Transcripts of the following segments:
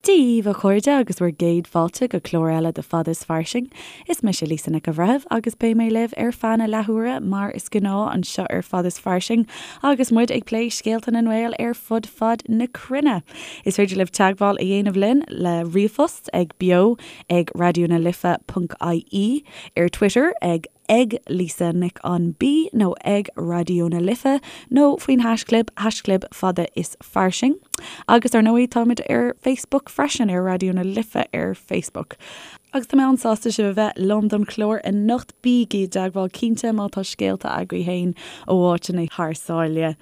Dia dhaoibh a chairde agus bhur gcéad fáilte go clár eile de Fada is Fairsing. Is mise Lisa Nic an Bhreithimh agus beidh mé libh ar feadh na leathuaire mar is gnáth anseo ar Fada is Fairsing agus muid ag plé scéalta na nGael ar fud fad na cruinne. Is féidir libh teagmháil a dhéanamh linn le ríomhphost ag beo ag raidionalife ponc ie, ar Twitter ag ag Lisa Nic an B nó ag Raidió na Life nó faoin haischlib, haischlib Fada is Fairsing. Agus ar ndóigh táimid ar Facebook freisin, ar Raidió na Life ar Facebook. Agus tá mé an-sásta sibh a bheith liom don chlár anocht. Bígí i dteagmháil cinnte má tá scéalta agaibh féin ó áiteanna thar sáile.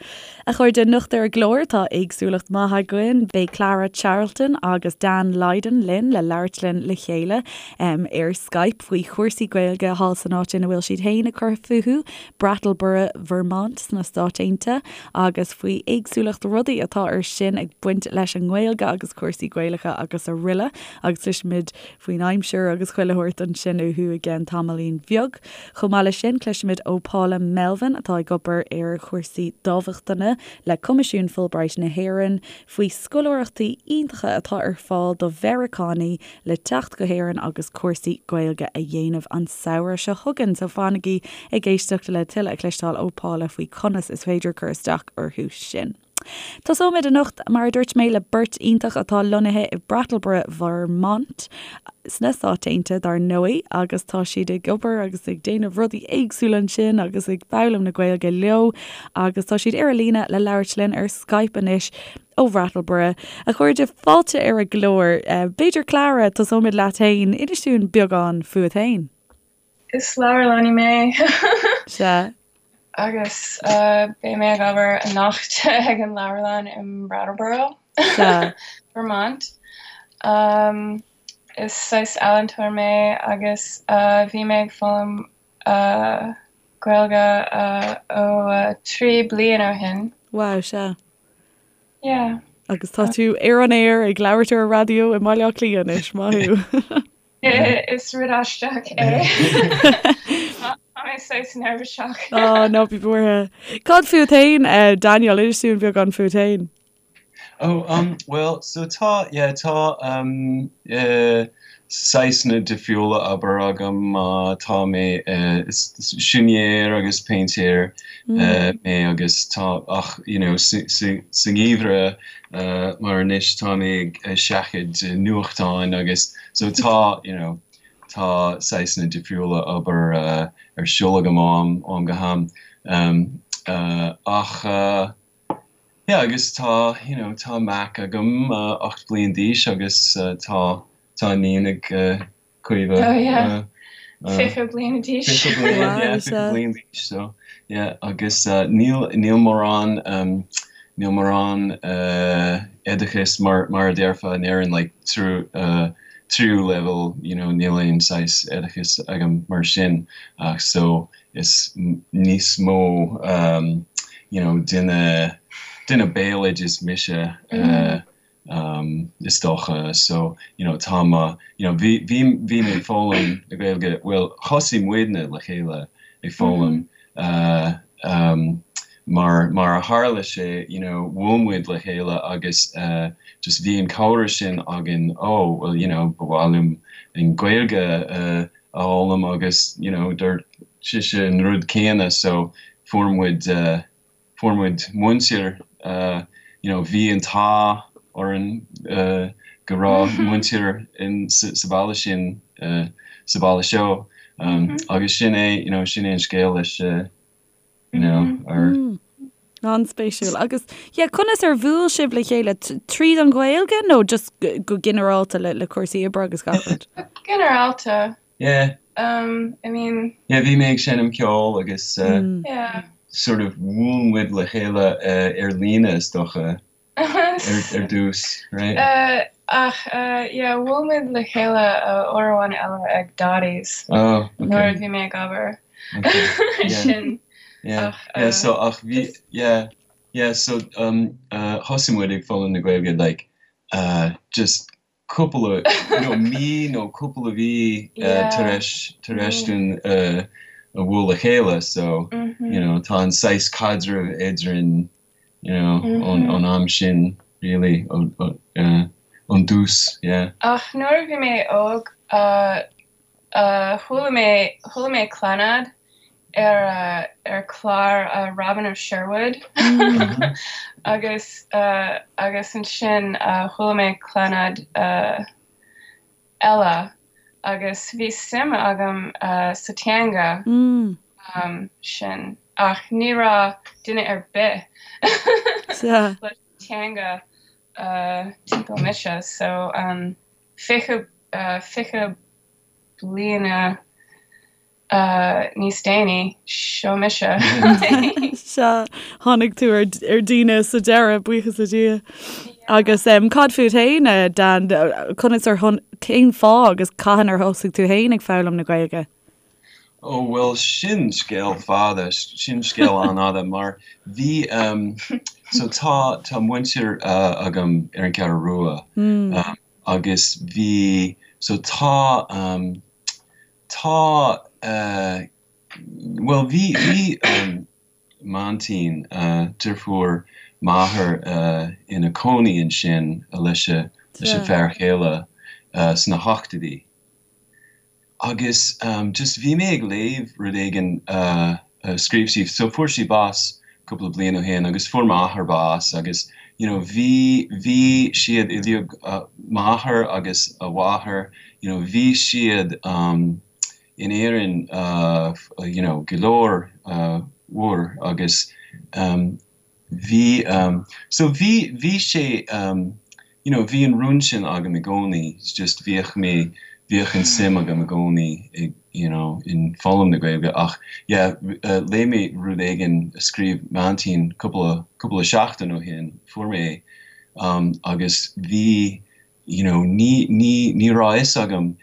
A chairde, anocht ar an gclár tá éagsúlacht maith againn. Beidh Clara Charlton agus Dan Lydon linn le labhairt linn le chéile ar Skype faoi chúrsaí Gaeilge thall san áit ina bhfuil siad féin ag cur fúthu, Brattleboro, Vermont sna Stáit Aontaithe, agus faoi éagsúlacht rudaí atá ar sin ag baint leis an nGaeilge agus cúrsaí Gaelacha agus aroile. Agus cloisfimid faoin aimsir agus chuile shórt ansin uathu i gceann tamaillín bheag. Chomh maith leis sin, cloisfimid ó Paula Melvin atá ag obair ar chúrsaí dámhachtana le Coimisiún Fulbright na hÉireann faoi scoláireachtaí iontacha atá ar fáil do Mheiriceánaigh le teacht go hÉirinn agus cúrsaí Gaeilge a dhéanamh an samhradh seo chugainn. So fanaigí ag éisteacht le tuilleadh a chloisteáil ó Paula faoi conas is féidir cur isteach orthu sin. Tosóimid anocht, mar a dúirt mé, le beirt iontach atá lonnaithe i Brattleboro, Vermont, sna Stáit Aontaithe, dar ndóigh, agus tá siad ag obair agus ag déanamh rudaí éagsúla ansin agus ag foghlaim na Gaeilge leo agus tá siad ar an líne le labhairt linn ar Skype anois ó Bhrattleboro. A chairde, fáilte ar an gclár. B'fhéidir, Clara, tosóimid leat féin. Inis dúinn beagán fúat féin. Is leabharlannaí mé. Sea. Agus beidh mé ag obair anocht ag an leabharlann i mBrattleboro, Sea. Vermont. Is saghas ealaíontóir mé agus bhí mé ag foghlaim Gaeilge ó 3 bliain ó shin. Wow, sea. Yeah. Agus tá tú ar an aer ag labhairt ar an raidió i mBaile Átha Cliath anois, maith thú. Is rud aisteach é. Tá mé saghas neirbhíseach. Á, ná bí buartha. Cad fút féin, Daniel? Inis dúinn beagán fút féin. Oh, um, well, so tá, yeah, tá, um, eh, saghsanna difriúla obair agam, tá mé, eh, is siúinéir agus péintéir, eh, mé agus tá, ach, you know, sa, sa, sa ngeimhreadh, mar anois tá mé ag seachadadh nuachtáin agus so tá you know tá saghsanna difriúla obair ar siúl agam ó am ó am go ham ach yeah agus tá you know tá mac agam 8 bliain d'aois agus tá tá iníon ag Caoimhe. Oh yeah. 20 bliain d'aois. 20 bliain, yeah, 20 bliain d'aois, so, yeah, agus níl, níl mórán, níl mórán oideachas mar, mar a déarfá in Éirinn, like, triú, triú leibhéal, you know, níl aon saghas oideachas agam mar sin, ach so, is níos mó, you know, duine, duine béaloidis mise, is dócha so you know tá mo you know bhí bhí bhí mé ag foghlaim na Gaeilge bhuel thosaigh muidne le chéile ag foghlaim uh, um, mar mar a tharla sé you know bhuail muid le chéile agus uh, just bhí an comhrá sin againn oh well you know ba mhaith liom an Ghaeilge uh, a fhoghlaim agus you know dúirt sise an rud céanna so fuair muid uh, fuair muid múinteoir, you know, bhí an t-ádh orainn go raibh múinteoir in sa bhaile sin, sa bhaile seo agus sin é, you know, sin é an scéal leis, you know, ar. An-spéisiúil. Agus, yeah, conas ar bhuail sibh le chéile? Tríd an Ghaeilge nó just go ginearálta le le cúrsaí oibre agus gach rud? Go ginearálta. Yeah. Um, I mean. Yeah, bhí mé ag seinm ceoil agus uh, yeah. sort of bhuail muid le chéile uh, ar líne is dócha ar, ar dtús, right? Uh, ach, uh, yeah, bhuail muid le chéile uh, uair amháin eile ag Dottie's. Oh, okay. Nuair a bhí mé ag obair. Okay. Yeah. Sin. Yeah. Ach, Yeah, uh, so ach bhí, just- yeah, yeah, so um, uh, thosaigh muid ag foghlaim na Gaeilge like uh, just cúpla nó mí nó cúpla mhí tar éis tar éis dúinn a bhualadh le chéile so you know tá an saghas caidreamh eadrainn you know ón ón am sin really ó Ón dtús, yeah. Ach nuair a bhí mé óg, chuala mé, chuala mé Clannad ar, ar chlár Robin of Sherwood agus, agus ansin chuala mé Clannad eile agus bhí suim agam sa teanga sin ach ní raibh duine ar bith leis an teanga timpeall mise so 20 20 bliana níos déanaí, seo mise. Sea, tháinig tú ar daoine sa deireadh, buíochas le Dia. Agus cad fút féin, Dan, conas ar, cén fáth agus cathain ar thosaigh tú féin ag foghlaim na Gaeilge? Ó bhuel sin scéal fada, sin scéal an-fhada mar bhí so tá tá muintir agam ar an gCeathrú Rua agus bhí so tá tá bhuel bhí bhí m'aintín, deirfiúr m'athar ina cónaí ansin leis a leis a fear chéile sna hochtóidí. Agus just bhí mé ag léamh rud éigin a scríobh sí, so fuair sí bás cúpla bliain ó shin agus fuair m'athair bás agus you know bhí, bhí siad uilig, m'athair agus a mháthair, you know bhí siad in Éirinn you know go leor uair agus Bhí, so bhí, bhí sé, you know, bhí an rún sin agam i gcónaí, it's just bhíodh mé, bhíodh an suim agam i gcónaí i, you know, in foghlaim na Gaeilge ach yeah, léigh mé rud éigin a scríobh m'aintín cúpla, cúpla seachtain ó shin, fuair mé é, agus bhí, you know, ní, ní, ní raibh a fhios agam,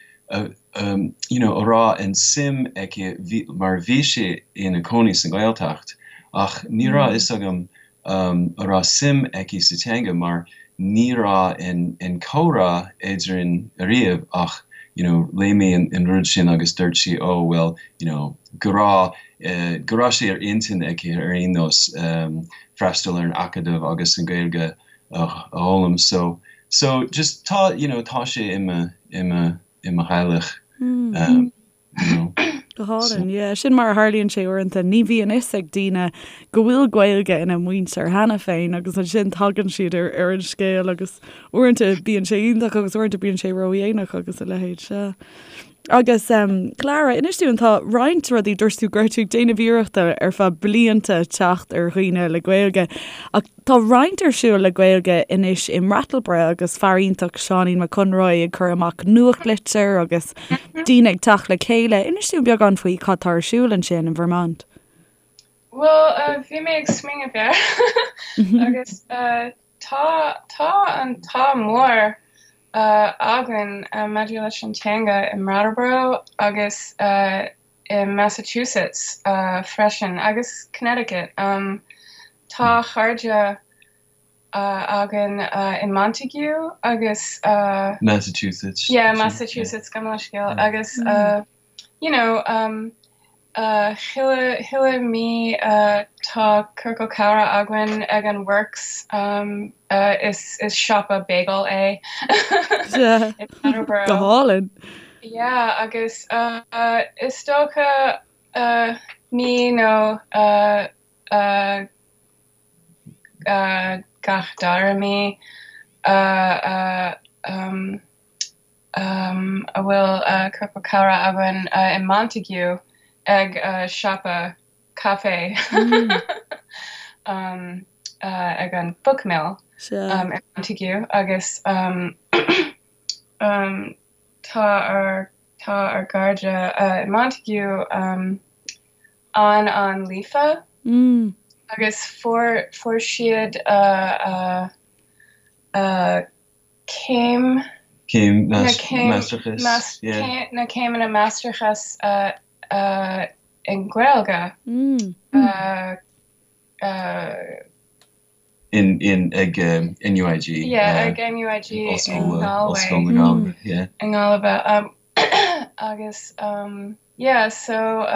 you know, a raibh an suim aici, bhí, mar bhí sí ina cónaí sa nGaeltacht, ach ní raibh a fhios agam a raibh suim aici sa teanga mar ní raibh an, an comhrá eadrainn ariamh ach, you know, léigh mé an, an rud sin agus dúirt sí, oh well, you know, go raibh, go raibh sé ar intinn aici ar aon nós freastal ar an Acadamh agus an Ghaeilge a fhoghlaim so so just tá you know tá sé i mo i mo i mo theaghlach um you know. Go hálainn, yeah. Sin mar a tharlaíonn sé uaireanta. Ní bhíonn fhios ag daoine go bhfuil Gaeilge ina muintir cheana féin agus ansin tagann siad ar ar an scéal agus uaireanta bíonn sé iontach agus uaireanta bíonn sé ródhéanach agus a leithéid, sea. Agus Clara, inis dúinn, tá roinnt rudaí, dúirt tú go raibh tú ag déanamh iarrachta ar feadh blianta teacht ar dhaoine le Gaeilge, ach tá roinnt ar siúl le Gaeilge anois i mBrattleboro agus fear iontach Seáinín Mac Conroy ag cur amach nuachtlitir agus daoine ag teacht le chéile. Inis dúinn beagán faoi cad tá ar siúl ansin in Vermont. Bhuel, bhí mé ag smaoineamh air agus Tá, tá an t-ádh mór againn maidir leis an teanga i mBrattleboro agus i Massachusetts freisin, agus Connecticut. Tá cairde againn i Montague agus. Massachusetts. Yeah, Massachusetts, gabh mo leithscéal. Agus you know, chuile, chuile mí tá ciorcal comhrá againn ag an Works, is, is siopa bagel é i Brattleboro. Go hálainn. Yeah, agus is dócha mí nó gach dara mí a bhfuil ciorcal comhrá againn i Montague ag siopa caife ag an Book Mill i Montague agus tá ár tá ár gcairde i Montague an-an-líofa agus fuair fuair siad céim Céim máistreachais, yeah. Na céimeanna máistreachais i nGaeilge. In, in, ag NUIG. Yeah, ag NUIG i nGalway. Ollscoil na Gaillimhe, yeah. I nGaillimh. Agus, yeah, so,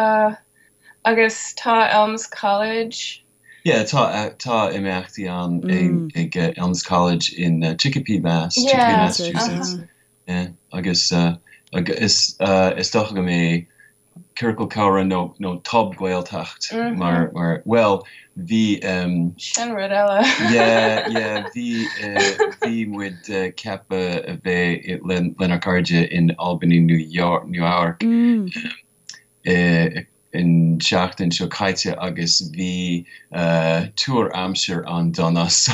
agus tá Elms College. Yeah, tá tá imeachtaí ann ag Elms College in Chicopee, Mass, Chicopee, Massachusetts. Yeah, agus is is dócha go mbeidh Ciorcal Comhrá nó nó Tob-Ghaeltacht mar mar bhuel bhí Sin rud eile. Yeah, yeah, bhí bhí muid ceaptha a bheith lenár cairde in Albany, New York, Nua Eabhrac an tseachtain seo caite agus bhí tuar aimsir an-dona so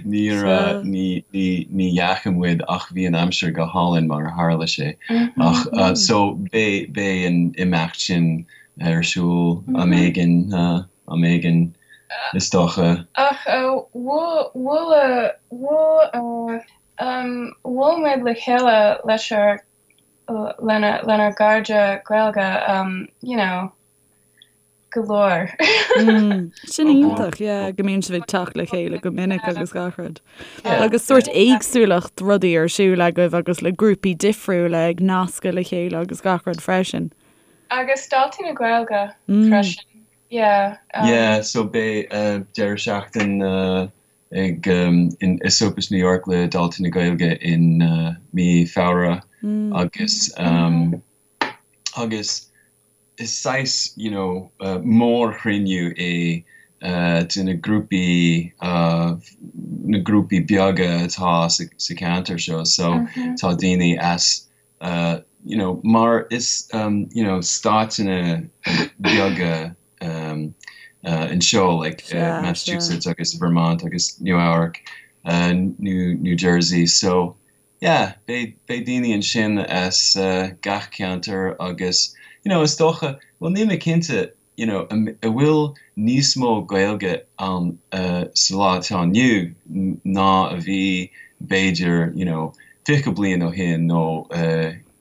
níor ní ní ní dheachaigh muid ach bhí an aimsir go hálainn mar a tharla sé ach so beidh beidh an imeacht sin ar siúl am éigin am éigin is dócha. Ach bhuail bhuail bhuail bhuail muid le chéile leis ár lenár gcairde Gaeilge, you know, go leor. Sin iontach, yeah, go mbíonn sibh ag teacht le chéile go minic agus gach rud. Agus sórt éagsúlacht rudaí ar siúl agaibh agus le grúpaí difriúla ag nascadh le chéile agus gach rud freisin. Agus Daltaí na Gaeilge freisin, yeah. Yeah, so beidh deireadh seachtaine ag in Esopus New York le Daltaí na Gaeilge in mí Feabhra agus agus is saghas you know mórchruinniú é de na grúpaí na grúpaí beaga atá sa cheantar seo so tá daoine as you know mar is you know stáiteanna beaga anseo like Massachusetts agus Vermont agus Nua Eabhrac New New Jersey so yeah beidh beidh daoine ansin as gach ceantar agus you know is dócha bhuel níl mé cinnte you know an bhfuil níos mó Gaeilge ann sa lá atá inniu ná a bhí b'fhéidir you know 20 bliain ó shin nó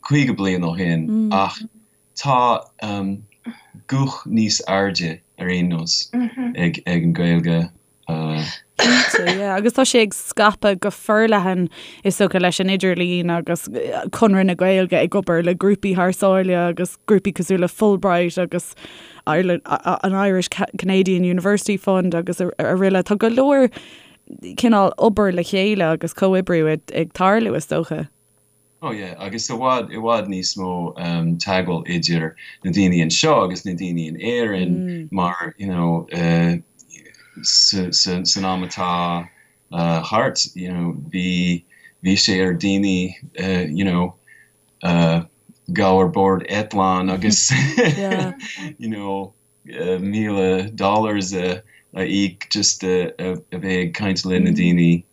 50 bliain ó shin ach tá guth níos airde ar aon nós ag ag an Ghaeilge. Cinnte, yeah. Agus tá sé ag scaipeadh go forleathan is dócha leis an idirlíon agus Conradh na Gaeilge ag obair le grúpaí thar sáile agus grúpaí cosúil le Fulbright agus Ireland, an Irish Canadian University Fund agus araile. Tá go leor cineál obair le chéile agus comhoibriú ag tarlú is dócha. Oh yeah, agus i bhfad, i bhfad níos mó teagmháil idir na daoine anseo agus na daoine in Éirinn mar, you know, sa, sa, san am atá thart, you know, bhí, bhí sé ar daoine, you know, gabh ar bord eitleán agus, you know, 1,000 dollars a íoc just a bheith ag caint le na daoine.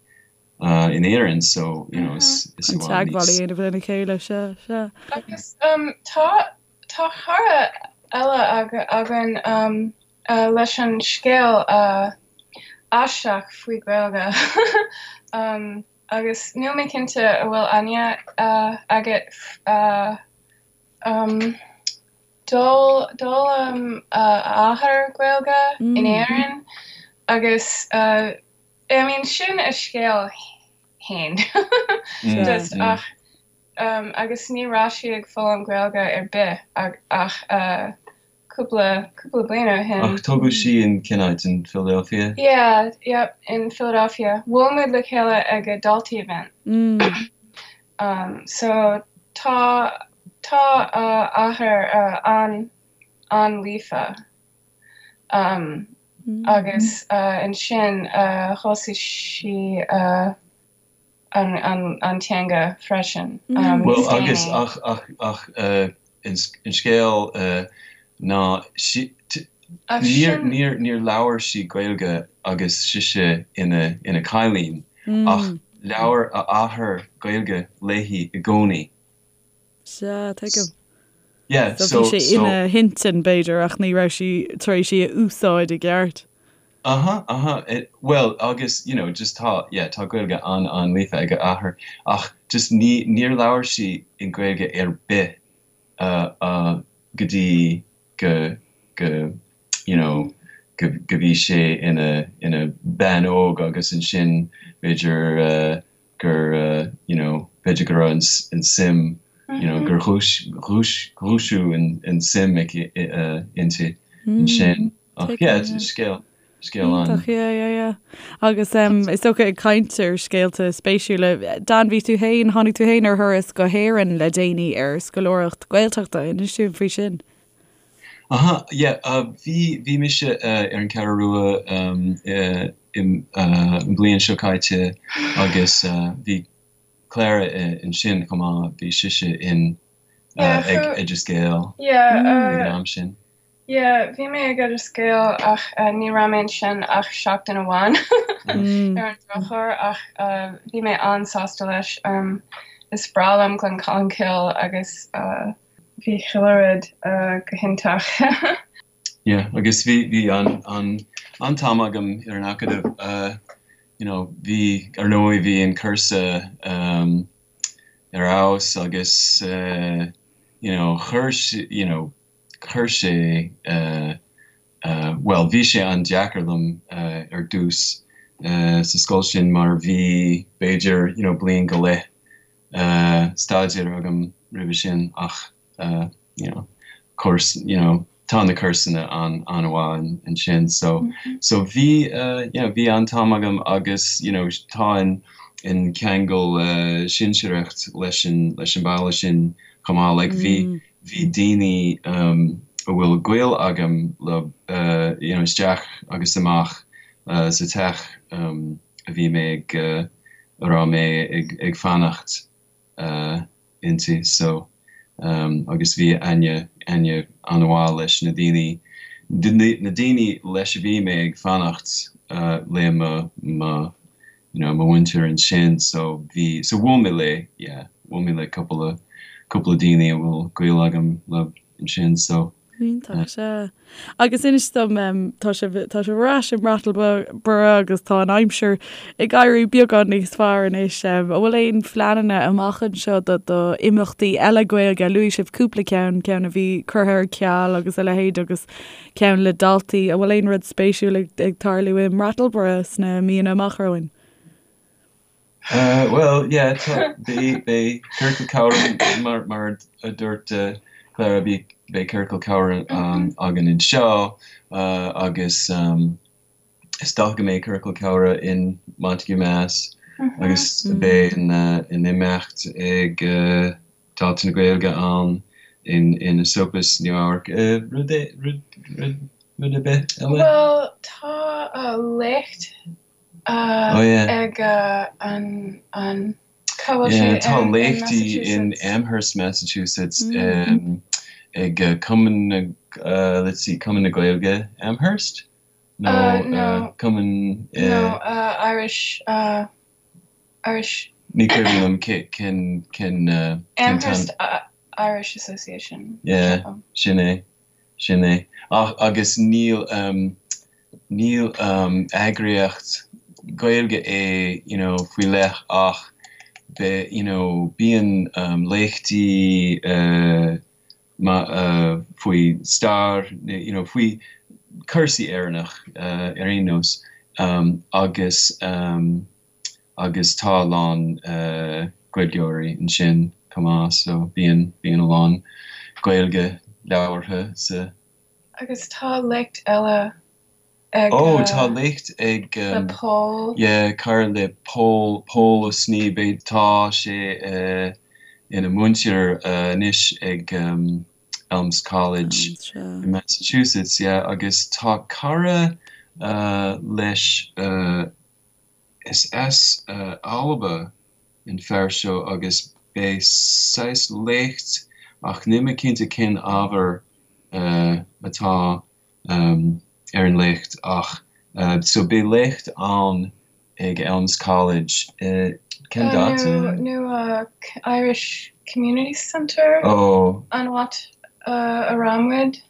in Éirinn so you know is is i bhfad níos. Teagmháil a dhéanamh lena chéile, sea, sea. Agus tá tá cara eile againn leis an scéal aisteach faoi Gaeilge agus níl mé cinnte an bhfuil aithne agat D'fhoghlaim a athair Gaeilge in Éirinn agus I mean sin a scéal fhéin just ach agus ní raibh sí ag foghlaim Gaeilge ar bith ach cúpla cúpla bliain ó shin. Ach tógadh sí in cén áit, in Philadelphia? Yeah, yep, in Philadelphia. Bhuail muid le chéile ag a Daltaí event. So tá tá a athair an an-líofa. Agus ansin thosaigh sí an teanga freisin. Bhuel agus ach ach ach an scéal ná níor níor níor labhair sí Gaeilge agus sise ina ina cailín ach labhair a athair Gaeilge léi i gcónaí. Sea, tuigim. Yeah, so, so bhí sé ina hintinn, b'fhéidir, ach ní raibh sí tar éis í a úsáid i gceart. Aha, aha, bhuel, agus, you know, just tá, yeah, tá Gaeilge an-an-líofa ag a athair, ach just ní, níor labhair sí in Gaeilge ar bith uh, uh, go dtí go, go, you know, go, go bhí sé ina, ina bean óg agus ansin b'fhéidir uh, gur you know b'fhéidir go raibh an suim you know gur dhúiseadh an suim aici inti ansin. Ach yeah, scéal. Scéal an. Iontach, yeah, yeah, yeah. Agus is dócha ag caint ar scéalta spéisiúla, Dan, bhí tú féin, tháinig tú féin ar thuras go hÉirinn le déanaí ar scoláireacht Gaeltachta, inis dúinn faoi sin. Aha, yeah, bhí, bhí mise ar an Cheathrú Rua an bhliain seo caite agus bhí Clara ansin chomh maith, bhí sise in ag Oideas Gael ag an am sin. Yeah, bhí mé ag Oideas Gael ach ní raibh mé ansin ach seachtain amháin ar an drochuair ach bhí mé an-sásta leis. Is breá liom Glencolmcille agus bhí chuile rud go hiontach. Yeah, agus bhí bhí an an an-t-am agam ar an Acadamh. You know, bhí, ar ndóigh, bhí an cúrsa ar fheabhas agus you know, chuir, you know, chuir sé, bhuel, bhí sé an-deacair liom ar dtús sa scoil sin mar bhí b'fhéidir you know bliain go leith staidéir agam roimhe sin ach you know course you know tá na cúrsanna an-mhaith ansin so so bhí you know bhí an-t-am agam agus you know tá an an ceangal sinsearacht leis an leis an baile sin chomh maith like bhí bhí daoine a bhfuil gaol agam leo you know isteach agus amach sa teach a bhí mé ag a raibh mé ag fanacht inti so agus bhí aithne aithne an-mhaith leis na daoine na daoine leis a bhí mé ag fanacht le mo mo you know, mo mhuintir ansin so bhí, so bhuail mé le, yeah, bhuail mé le cúpla, cúpla daoine a bhfuil gaol agam leo ansin so. Iontach, sea. Agus inis dom, tá sibh, tá sibh ar ais i mBrattleboro agus tá an aimsir ag éirí beagán níos fearr anois. An bhfuil aon phleananna amach anseo do, do imeachtaí eile Gaeilge? Luaigh sibh cúpla ceann, ceann a bhí curtha ar ceal agus a leithéid agus ceann le daltaí. An bhfuil aon rud spéisiúil ag tarlú i mBrattleboro sna míonna amach romhainn? Bhuel, yeah, tá, beidh, beidh ciorcal comhrá, mar, mar a dúirt Clara, beidh, beidh ciorcal comhrá againn anseo agus is dócha go mbeidh ciorcal comhrá in Montague, Mass agus beidh an, an imeacht ag Dáta na Gaeilge ann in Esopus, Nua Eabhrac. Rud rud rud rud ar bith eile? Bhuel, tá léacht ag an an cá bhfuil sé in Tá léachtaí in Amherst, Massachusetts ag Cumann na let's see, Cumann na Gaeilge Amherst? Nó Cumann No, Irish Irish. Ní cuimhin liom cén cén Amherst Irish Association. Yeah, sin é, sin é. Ach agus níl níl eagraíocht Gaeilge é you know faoi leith ach be you know bíonn léachtaí faoi stair you know faoi cúrsaí Éireannach ar aon nós agus agus tá a lán Gaeilgeoirí ansin chomh maith so bíonn, bíonn a lán Gaeilge labhartha sa. Agus tá léacht eile ag. Oh, tá léacht ag. Le Pól. Yeah, cara le Pól, Pól Ó Snoí, beidh, tá sé ina mhúinteoir anois ag Elms College in Massachusetts, yeah, agus tá cara leis, Is as Alba an fear seo agus beidh saghas léacht ach níl mé cinnte cén ábhar atá ar an léacht ach so beidh léacht ann ag Elms College cén dáta? Nó Irish Community Centre an áit a raibh muid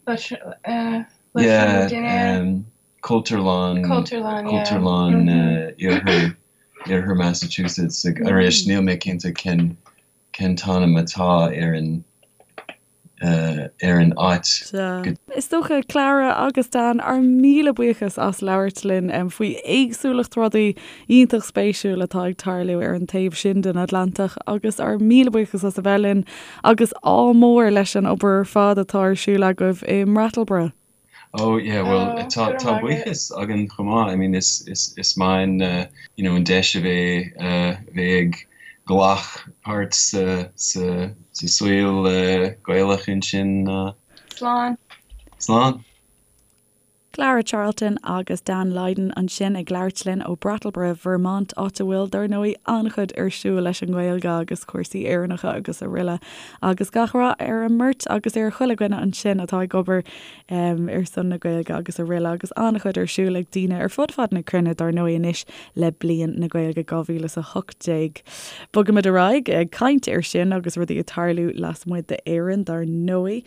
leis an dinnéar. Cultúrlann, Cultúrlann, yeah. Cultúrlann iarthar, iarthar Massachusetts. Arís, níl mé cinnte cén, cén t-ainm atá ar an, ar an áit. Sea. Is dócha, Clara agus Dan, ár míle buíochas as labhairt linn faoi éagsúlacht rudaí iontach spéisiúil atá ag tarlú ar an taobh sin den Atlantach agus ár míle buíochas as a bheith linn agus ádh mór leis an obair ar fad atá ar siúl agaibh i mBrattleboro. Oh yeah, well oh, tá tá buíochas againn chomh maith. I mean is is is maith an uh, you know an deis a bheith uh, bheith ag glacadh páirt sa sa sa saol uh, Gaelach ansin. Uh, Slán. Slán. Clara Charlton agus Dan Lydon ansin ag labhairt linn ó Brattleboro, Vermont, áit a bhfuil, dar ndóigh, an-chuid ar siúl leis an nGaeilge agus cúrsaí Éireannacha agus araile. Agus gach rath ar an mbeirt agus ar chuile dhuine ansin atá ag obair ar son na Gaeilge agus araile. Agus an-chuid ar siúl ag daoine ar fud fad na cruinne, dar ndóigh, anois le Bliain na Gaeilge 2018. Bogaimid ar aghaidh ag caint air sin agus rudaí ag tarlú lasmuigh d'Éirinn, dar ndóigh.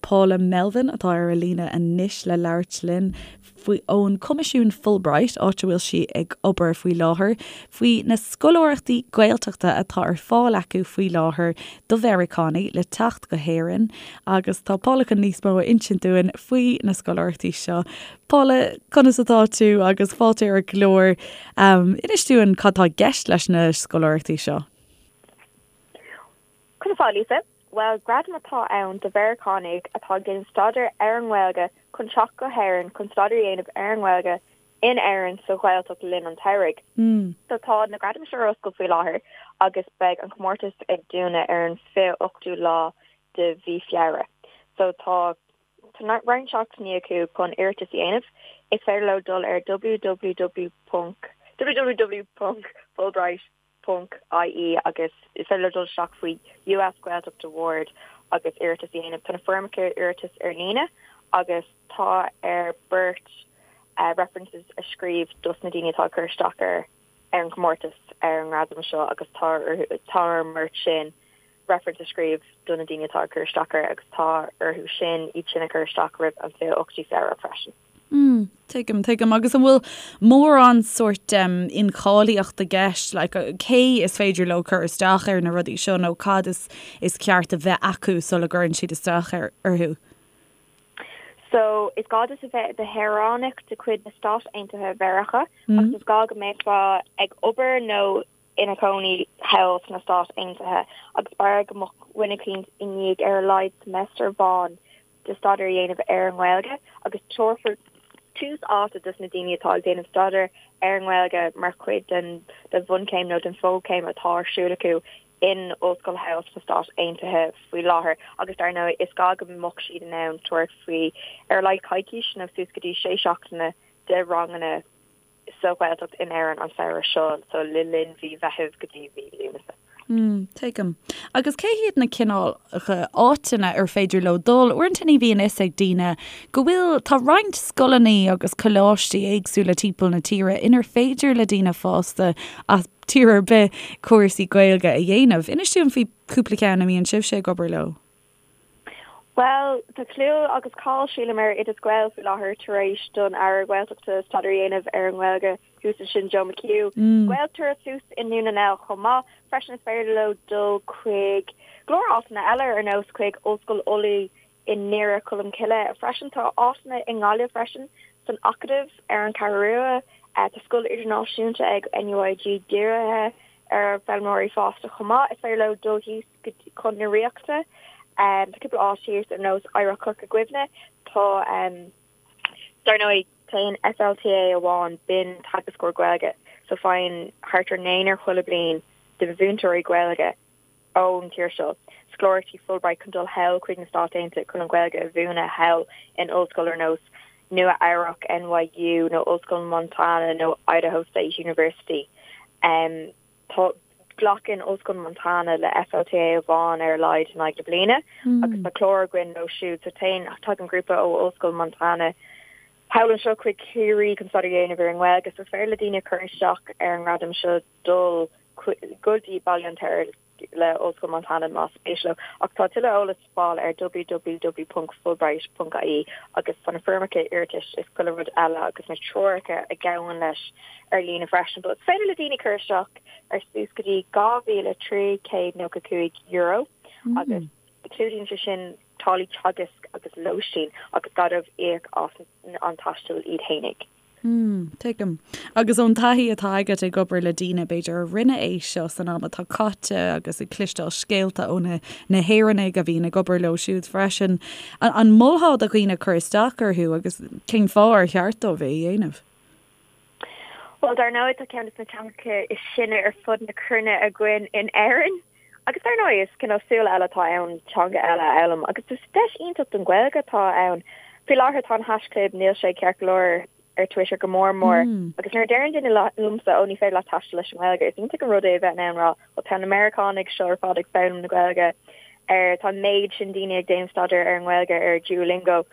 Paula Melvin atá ar an líne anois le labhairt linn faoi ón Coimisiún Fulbright, áit a bhfuil sí ag obair faoi láthair, faoi na scoláireachtaí Gaeltachta atá ar fáil acu faoi láthair do Mheiriceánaigh le teacht go hÉirinn agus tá Paula chun níos mó a insint dúinn faoi na scoláireachtaí seo. Paula, conas atá tú agus fáilte ar an gclár. Inis dúinn cad tá i gceist leis na scoláireachtaí seo. Conas tá, Lisa? Bhuel, gradam atá ann do Mheiriceánaigh atá ag déanamh staidéir ar an nGaeilge chun teacht go hÉirinn chun staidéar a dhéanamh ar an nGaeilge in Éirinn sa Ghaeltacht le linn an tsamhraidh. So tá na gradaim seo ar oscailt faoi láthair agus beidh an comórtas ag dúnadh ar an 28ú lá de mhí Feabhra. So tá tá roinnt seachtainí acu chun iarratas a dhéanamh. Is féidir leo dul ar www. www.fulbright. ponc ie agus is féidir leo dul isteach faoi US Gaeltacht Award agus iarratas a dhéanamh. Tá na foirmeacha iarratais ar líne agus tá ar beirt references a scríobh dos na daoine atá ag cur isteach ar ar an chomórtas ar an ngradam seo agus tá orthu tá ar an mbeirt sin reference a scríobh do na daoine atá ag cur isteach air agus tá orthu sin iad sin a chur isteach roimh an 28ú Feabhra freisin. Mm, tuigim, tuigim. Agus an bhfuil mórán sórt um, incháilitheacht i gceist, like, cé is féidir leo cur isteach ar na rudaí seo nó cad is, is ceart a bheith acu sula gcuireann siad isteach ar, orthu? So, is gá duit a bheith i do shaoránach de chuid na Stát Aontaithe Mheiriceá mm. agus is gá go mbeifeá ag obair nó ina chónaí thall sna Stáit Aontaithe agus b'fhearr go mbeadh duine eicínt i ndiaidh ar a laghad semester amháin de staidéar a dhéanamh ar an nGaeilge agus tabharfar tús áite dos na daoine atá ag déanamh staidéar ar an nGaeilge mar chuid den den bhunchéim nó den fhochéim atá ar siúl acu in ollscoil thall sna Stáit Aontaithe faoi láthair agus dar ndóigh is gá go mbeadh siad in ann tabhairt faoi ar a laghad coicís nó suas go dtí sé seachtaine de ranganna sa Ghaeltacht in Éirinn an samhradh seo, so le linn mhí Mheithimh go dtí mhí Lúnasa. Mm, tuigim. Agus cé hiad na cineálacha áiteanna ar féidir leo dul? Uaireanta ní bhíonn fhios ag daoine go bhfuil, tá roinnt scoileanna agus coláistí éagsúla timpeall na tíre inar féidir le daoine fásta as tír ar bith cúrsaí Gaeilge a dhéanamh. Inis dúinn faoi chúpla ceann a mbíonn sibhse ag obair leo. Bhuel, tá clú agus cáil, sílim, ar Oideas Gael faoi láthair tar éis don Aire Gaeltachta staidéar a dhéanamh ar an nGaeilge thuas ansin, Joe McHugh. Gaeltarra thuas i nDún na nGall chomh maith. Freisin is féidir leo dul chuig go leor áiteanna eile ar nós chuig Ollscoil Ulaidh i nDoire Cholm Cille. Freisin tá áiteanna i nGaillimh freisin, san Acadamh ar an Cheathrú Rua. Tá scoil idirnáisiúnta ag NUIG dírithe ar foghlaimeoirí fásta chomh maith. Is féidir leo dul thíos chun na Ríochta. Tá cúpla áit thíos ar nós Oidhreacht Chorca Dhuibhne. Tá, dar ndóigh, téann FLTA amháin, b'in teagascóir Gaeilge, so faigheann thart ar naonúr chuile bliain de mhúinteoirí Gaeilge ón tír seo scoláireachtaí Fulbright chun dul thall chuig na Stáit Aontaithe chun an Ghaeilge a mhúineadh thall in ollscoil ar nós Nua Eabhrac, NYU, nó Ollscoil Montana nó Idaho State University. Tá, glacann Ollscoil Montana le FLTA amháin ar a laghad in aghaidh na bliana agus tá clár againn leo siúd. So téann, tagann grúpa ó Ollscoil Montana thall anseo chuig Ciarraí chun staidéar a dhéanamh ar an nGaeilge. So is féidir le daoine cur isteach ar an ngradam seo dul go dtí Baile an Fheirtéaraigh le Ollscoil Montana más spéis leo. Ach tá tuilleadh eolas le fáil ar www.fulbright.ie agus tá na foirmeacha iarratais is chuile rud eile agus na treoracha a ghabhann leis ar líne freisin. But is féidir le daoine cur isteach ar suas go dtí €2,395 agus clúdaíonn sé sin táillí teagaisc agus lóistín agus gá dóibh íoc as an taisteal iad fhéinig. Mm, tuigim. Agus ón taithí atá agat ag obair le daoine, b'fhéidir, a rinne é seo san am atá caite agus ag cloisteáil scéalta ó na na hÉireannaigh a bhíonn ag obair leo siúd freisin, an molfá do dhaoine cur isteach orthu agus cén fáth ar cheart dóibh é a dhéanamh? Bhuel, dar ndóigh, tá ceann de na teangacha is sine ar fud na cruinne againn in Éirinn. Agus dar ndóigh, is cineál súil eile atá ann teanga eile a fhoghlaim agus is deis iontach don Ghaeilge atá ann. Faoi láthair tá an haischlib níl sé ceart go leor ar Twitter go mór mór agus nuair a deireann duine liomsa ó ní féidir leat taisteal leis an nGaeilge, is iontach an rud é a bheith in ann rá bhuel tá na Meiriceánaigh seo ar fad ag foghlaim na Gaeilge ar tá an méid sin daoine ag déanamh staidéar ar an nGaeilge ar Duolingo.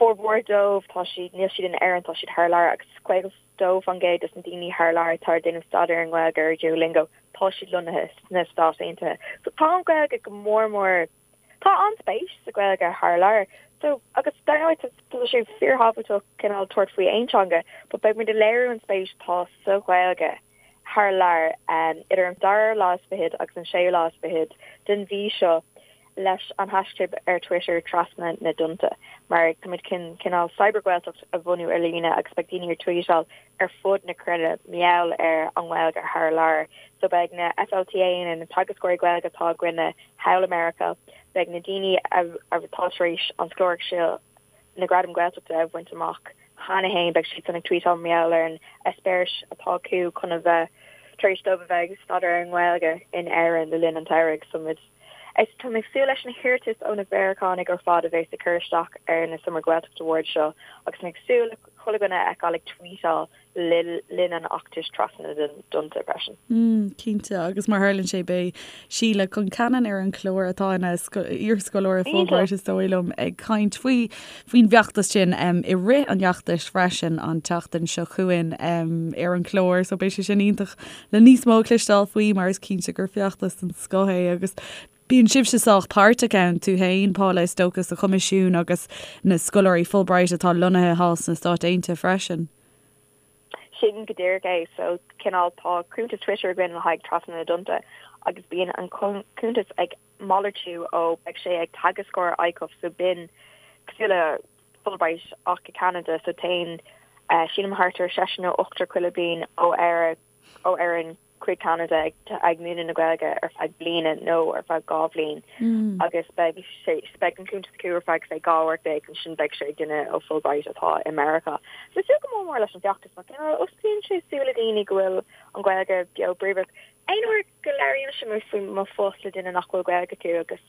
Formhór dóibh, tá siad, níl siad in Éirinn, tá siad thar lear agus 52% des na daoine thar lear atá ag déanamh staidéar ar an nGaeilge ar Duolingo, tá siad lonnaithe sna Stáit Aontaithe. So tá an Ghaeilge go mór mór, tá an-spéis sa Ghaeilge thar lear. So, agus dar ndóigh tá, tá sé fíorthábhachtach cineál tabhairt faoi aon teanga, but beidh muid ag léiriú an spéis atá sa Ghaeilge thar lear idir an dara lá is fichead agus an séú lá is fichead den mhí seo. leis an haischlib ar Twitter Trasna na dTonnta mar táimid chun cineál Cyber-Ghaeltacht a bhunú ar líne agus beidh daoine ag tweetáil ar fud na cruinne mar gheall ar an nGaeilge thar lear. So beidh na FLTAanna, na teagascóirí Gaeilge atá againne thall i Meiriceá, beidh na daoine atá tar éis an scoláireacht seo, na Gradaim Gaeltachta a bhaint amach cheana féin, beidh siadsan ag tweetáil mar gheall ar an eispéireas atá acu chun a bheith tar éis dóibh a bheith ag staidéar ar an nGaeilge in Éirinn le linn an tsamhraidh. So muid Is tá mé ag súil leis na hiarratais ó na Mheiriceánaigh ar fad a bheas ag cur isteach ar na Summer Gaeltacht Awards seo agus mé ag súil le chuile dhuine a fheiceáil ag tweetáil le linn an fheachtais trasna na dtonnta freisin. Mm, cinnte, agus mar tharlaíonn sé beidh Síle Concannon ar an chlár atá ina iarscoláire Fulbright is dóigh liom ag caint faoi faoin bhfeachtas sin i rith an fheachtais freisin an tseachtain seo chugainn ar an chlár so beidh sé sin iontach le níos mó a chloisteáil faoi mar is cinnte gur feachtas den scoth é agus bíonn sibhse sách páirteach ann, tú féin, Paula, is dócha, sa Choimisiún agus na scoláirí Fulbright atá lonnaithe thall sna Stáit Aontaithe freisin. Sin go díreach é. So, cineál, tá cuntas Twitter againn le haghaidh Trasna na dTonnta agus bíonn an cuntas ag malartú ó beidh sé ag teagascóir ICUF so b'in cosúil le Fulbright ach i Ceanada so téann sílim thart ar seisear nó ochtar chuile bliain ó Éire ó Éirinn chuig Ceanada ag ag múineadh na Gaeilge ar feadh bliana nó ar feadh 2 bhliain agus beidh sé beidh an cuntas acu ar feadh say 12 uair ansin beidh sé ag duine ó Fulbright atá i Meiriceá. So súil go mór mór leis an bhfeachtas mar cineál osclaíonn sé súile daoine go bhfuil an Ghaeilge beo bríomhar. Aon uair go labhraímse faoi mo phost le duine nach bhfuil Gaeilge acu agus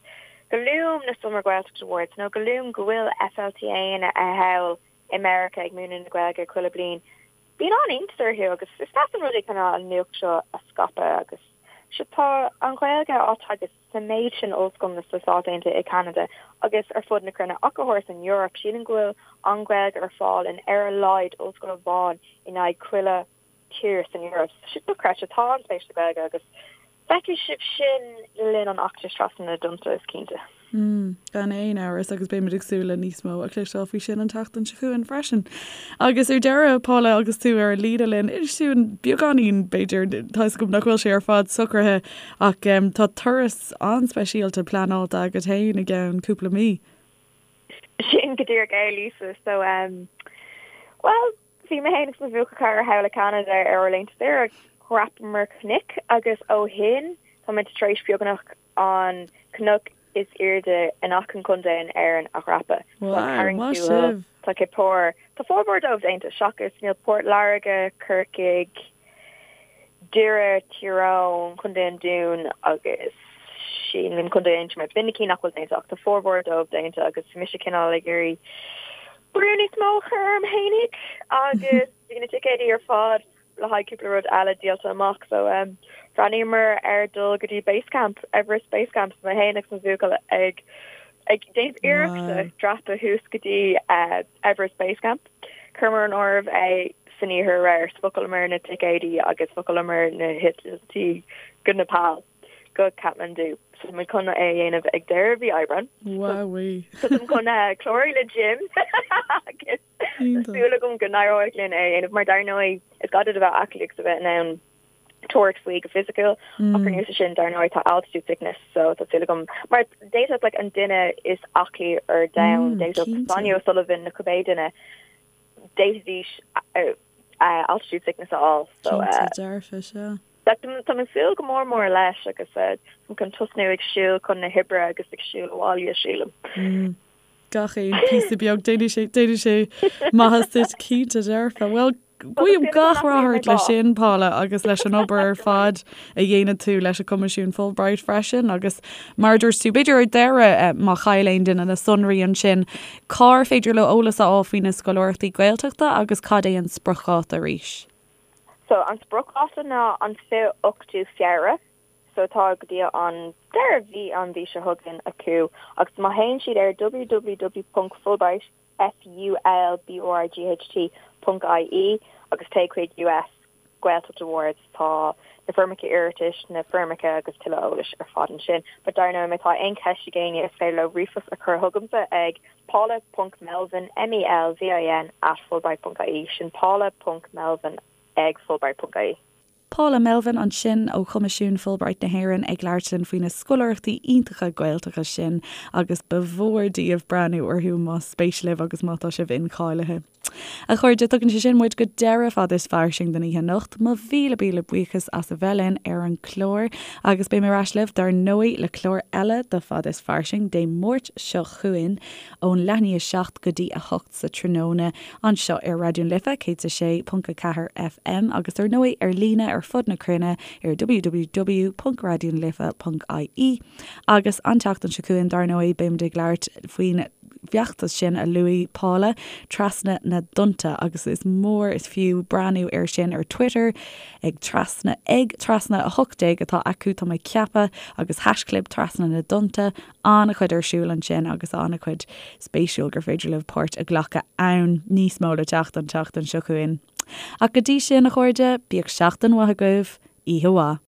go luaim na Summer Gaeltacht Awards nó go luaim go bhfuil FLTAanna thall i Meiriceá ag múineadh na Gaeilge chuile bliain, bíonn an-iontas orthu agus is deas an rud é cineál an nuacht seo a scaipeadh agus sea tá an Ghaeilge á teagasc sa méid sin ollscoileanna sna Stáit Aontaithe, i Ceanada agus ar fud na cruinne ach go háirithe san Eoraip. Sílim go bhfuil an Ghaeilge ar fáil in ar a laghad ollscoil amháin in aghaidh chuile tír san Eoraip. Tá sé dochreidte. Tá an-spéis sa Ghaeilge agus feicfidh sibh sin le linn an fheachtais Trasna na dTonnta, is cinnte. Mm, gan aon amhras agus beimid ag súil le níos mó a chloisteáil faoi sin an tseachtain seo chugainn freisin. Agus ar deireadh, Paula, agus tú ar an líne linn, inis dúinn beagáinín, b'fhéidir, tá 'fhios agam nach bhfuil sé ar fad socraithe, ach tá turas an-speisialta pleanáilte agat féin i gceann cúpla mí. Sin go díreach é, Lisa. So, um, well, Bhí mé féin agus mo bhuachaill cara thall i Ceanada ar ár laethanta saoire agus dhreapamar cnoic agus ó shin tá muid tar éis beagnach an cnoc is airde in achan contae in Éirinn a dhreapadh. Tá Wow, Carraig maith Tuathail, sibh! tá Cill Chartha, tá formhór dóibh déanta seachas níl Port Láirge, Corcaigh, Doire, Tír Eoghain, Contae an Dúin agus sílim Contae Aontroma. B'in na cinn nach bhfuil déanta ach tá formhór dóibh déanta agus bhí mise cineál ag iarraidh brú níos mó a chur orm fhéinig agus bhí na ticéidí ar fad le haghaidh cúpla rud eile díolta amach so um, bhreathnaíomar ar dul go dtí Base Camp, Everest Base Camp, so mé féin agus mo bhuachaill ag ag déanamh iarrachta Wow. dreapadh thuas go dtí uh, Everest Base Camp. Chuireamar in áirithe é san oíche aréir, so bhookálamar na ticéidí agus bhookálamar na heitiltí go Nepal, go Kathmandu. So tá muid chun é a dhéanamh ag deireadh mhí Aibreáin. Wowee. So táim chun clárú le gym agus tá Iontach. súil agam go n-éireoidh linn é a dhéanamh mar dar ndóigh is gá duit a bheith aclaí agus a bheith in ann tabhairt faoi go fisiciúil ach ar nós sin dar ndóigh tá altitude sickness so tá súil agam mar d'fhéadfadh like an duine is aclaí ar domhan d'fhéadfadh Sonia O'Sullivan nó cibé duine. D'fhéadfaidís altitude sickness a fháil. So Cinnte dearfa, sea. Tá mé ag súil go mór mór leis agus táim chun tosnú ag siúl chun na hoibre agus ag siúl abhaile, sílim. Gach aon píosa beag, déanfaidh sé, déanfaidh sé maitheas duit, cinnte dearfa. Bhuel, guím gach rath ort leis sin, Paula, agus leis an obair ar fad a dhéanann tú leis an Coimisiún Fulbright freisin agus mar a dúirt tú, b'fhéidir ar deireadh, má chaill aon duine na sonraí ansin, Cár féidir leo eolas a fháil faoi na scoláireachtaí Gaeltachta agus cad é an spriocdháta arís? So an spriocdháta ná an 28ú Feabhra, so tá go dtí an deireadh mhí an mhí seo chugainn acu agus má théann siad ar www.fulbright, F-U-L-B-R-I-G-H-T, ponc IE agus téigh chuig US Gaeltacht Awards, tá na foirmeacha iarratais, na foirmeacha agus tuilleadh eolais ar fad ansin. But dar ndóigh, má tá aon cheist ag éinne, is féidir leo ríomhphost a chur chugamsa ag paula ponc melvin, M-E-L-V-I-N, at fulbright ponc ie. Sin paula ponc melvin ag fulbright ponc ie. Paula Melvin ansin ó Choimisiún Fulbright na hÉireann ag labhairt linn faoi na scoláireachtaí iontacha Gaeltachta sin agus ba mhór daoibh breathnú orthu más spéis libh agus má tá sibh incháilithe. A chairde, tugann sé sin muid go deireadh Fada is Fairsing don oíche anocht. Mo mhíle míle buíochas as a bheith linn ar an chlár agus beidh mé ar ais libh dar ndóigh le clár eile de Fada is Fairsing Dé Máirt seo chugainn ón leath i ndiaidh 7 go dtí 8 sa tráthnóna anseo ar Raidió na Life 106.4 FM agus dar ndóigh ar líne ar fud na cruinne ar www.raidionalife.ie agus an tseachtain seo chugainn dar ndóigh beimid ag labhairt faoin bhfeachtas sin a luaigh Paula, Trasna na dTonnta, agus is mór is fiú breathnú air sin ar Twitter ag trasna ag trasna 18 atá acu, tá mé ag ceapadh, agus haischlib Trasna na dTonnta, an-chuid ar siúl ansin agus an-chuid spéisiúil gur féidir libh páirt a ghlacadh ann. Níos mó le teacht an tseachtain seo chugainn. Ach go dtí sin, a chairde, bíodh seachtain mhaith agaibh, oíche mhaith.